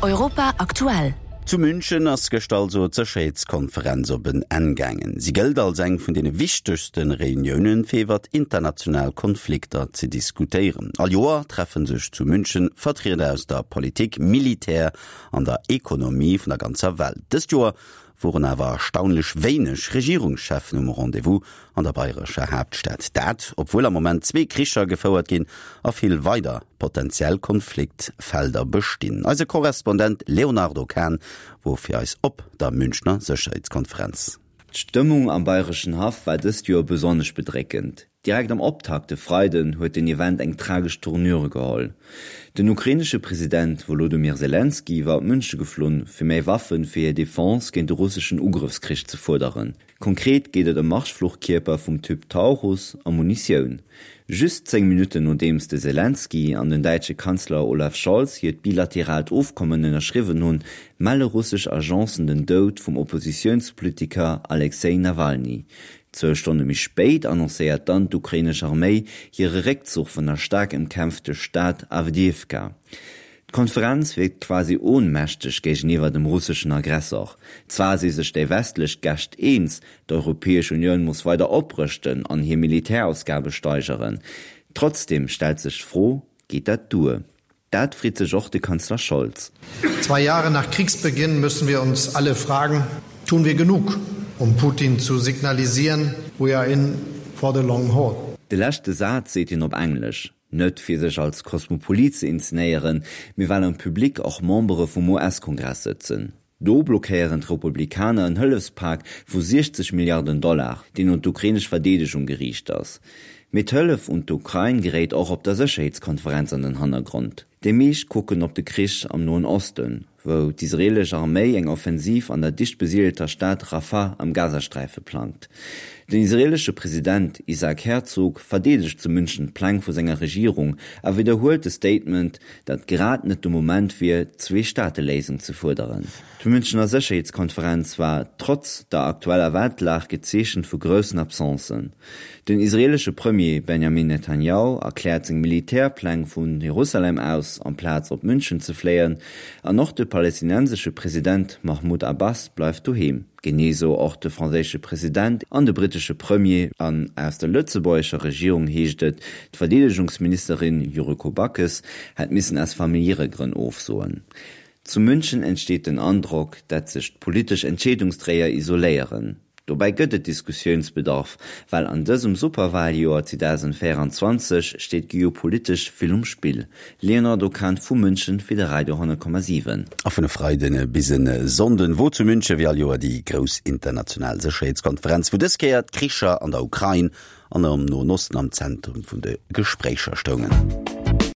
Europa aktuell. Zu München ass gëschter also d'Sécherheetskonferenz op en Enn gaangen. Si gëllt als eng vun deene wichtegste Reuniounen, fir iwwert international Konflikter ze diskutéieren. All Joer treffe sech zu München Vertrieder aus der Politik, Militär an der Ekonomie vun der ganzer Welt. Dëst Joer woren awer erstaunlech wéineg Regierungscheffen um Rendez-vous an der bayrescher Haaptstad. Dat, obwuel am Moment zwee Kricher gefouert ginn a vill weider potentiell Konfliktfelder bestinn. Eise Korrespondent Léonardo Kahn wor fir eis op der Münchner Sécherheetskonferenz. D'Stëmmung am bayreschen Haff war dëst Joer besonnesch bedréckend. Direkt am Optakt e Freiden huet den Event eng tragesch Tournure geholl. Den ukrainesche President Wolodomyr Selenskyj war op Münche geflunn, fir méi Waffen fir hir Defense géint de russeschen Ugrëffskrich ze fuerderen. Konkret geet et ëm Marschfluchkierper vum Typ Taurus a Munitioun. Just 10 Minutten nodeems de Selenskyj an den däitsche Kanzler Olaf Scholz hiert bilateraalt Ofkommen ënnerschriwwen hunn, melle russesch Agencen den Doud vum Oppositiounspolitiker Alexej Nawalny. Zwou Stonne méi spéit annoncéiert dann d'ukrainesch Arméi hire Réckzuch vun der staark ëmkämpfte Stad Awdijiwka. D'Konferenz wierkt quasi ohnmächteg géigeniwwer dem russeschen Aggressor. Zwar si sech déi westlech Gäscht eens, d'Europäesch Unioun muss weider oprëschten an hir Militärausgabe steigeren. Trotzdeem stellt sech d'Fro, Geet dat duer? Dat freet sech och de Kanzler Scholz. Zwei Jahre nach Kriegsbeginn müssen wir uns alle fragen, Tun wir genug, um Putin zu signalisieren, we are in for the long haul? De leschte Saz seet hien op Englesch, net fir sech als Kosmopolit ze inzenéieren, mee well am Public och Membere vum US-Kongress sëtzen. Do blockéieren d'Republikaner en Hëllefspak vu 60 Milliarden Dollar, deen un d'ukrainesch Verdeedegung geriicht ass. Mee d'Hëllef un d'Ukrain geréit och op der Sécherheetskonferenz an den Hannergrond. Déi meescht kucken op de Krich am Noen Osten, wou d'israeelesch Arméi eng Offensiv an der dicht besiedelter Stad Rafah am Gazasträife plangt. Den israeelesche President Isaac Herzog verdeedegt zu München d'Pläng vu senger Regierung a widderhuelt de Statement, datt grad net de Moment wier, d'Zwee-Staate-Léisung ze fuerderen. D'Münchener Sécherheetskonferenz war trotz der aktueller Weltlag gezeechent vu groussen Absencen. Den israeelesche Premier Benjamin Netanjahu erkläert seng Militärpläng vu Jerusalem aus, amplaz op München ze fléien, an och de palestinensesche President Mahmoud Abbas bleift doheem. Genee sou och de franséische President an de brittesche Premier. An aus der lëtzebuergescher Regierung heescht et, d'Verdeedegungsministerin Yuriko Backes hätt missen aus familiäre Grënn ofsoen. Zu München entsteet den Androck, dat sech d'politesch Entscheedungsdréier isoléieren. Dobäi gëtt et Diskussiounsbedarf, well an dësem Superwaljoer 2024 steet geopolitesch vill um Spill. Léonardo Kahn vu München fir de Radio 10,7. A vun e Freiden bis e Sonnden wor zu München wéi all Joer déi grouss international Sécherheetskonferenz, wou dës Kéier d'Kricher an der Ukrain an am Noen Osten am Zentrum vun de Gespréicher stoungen.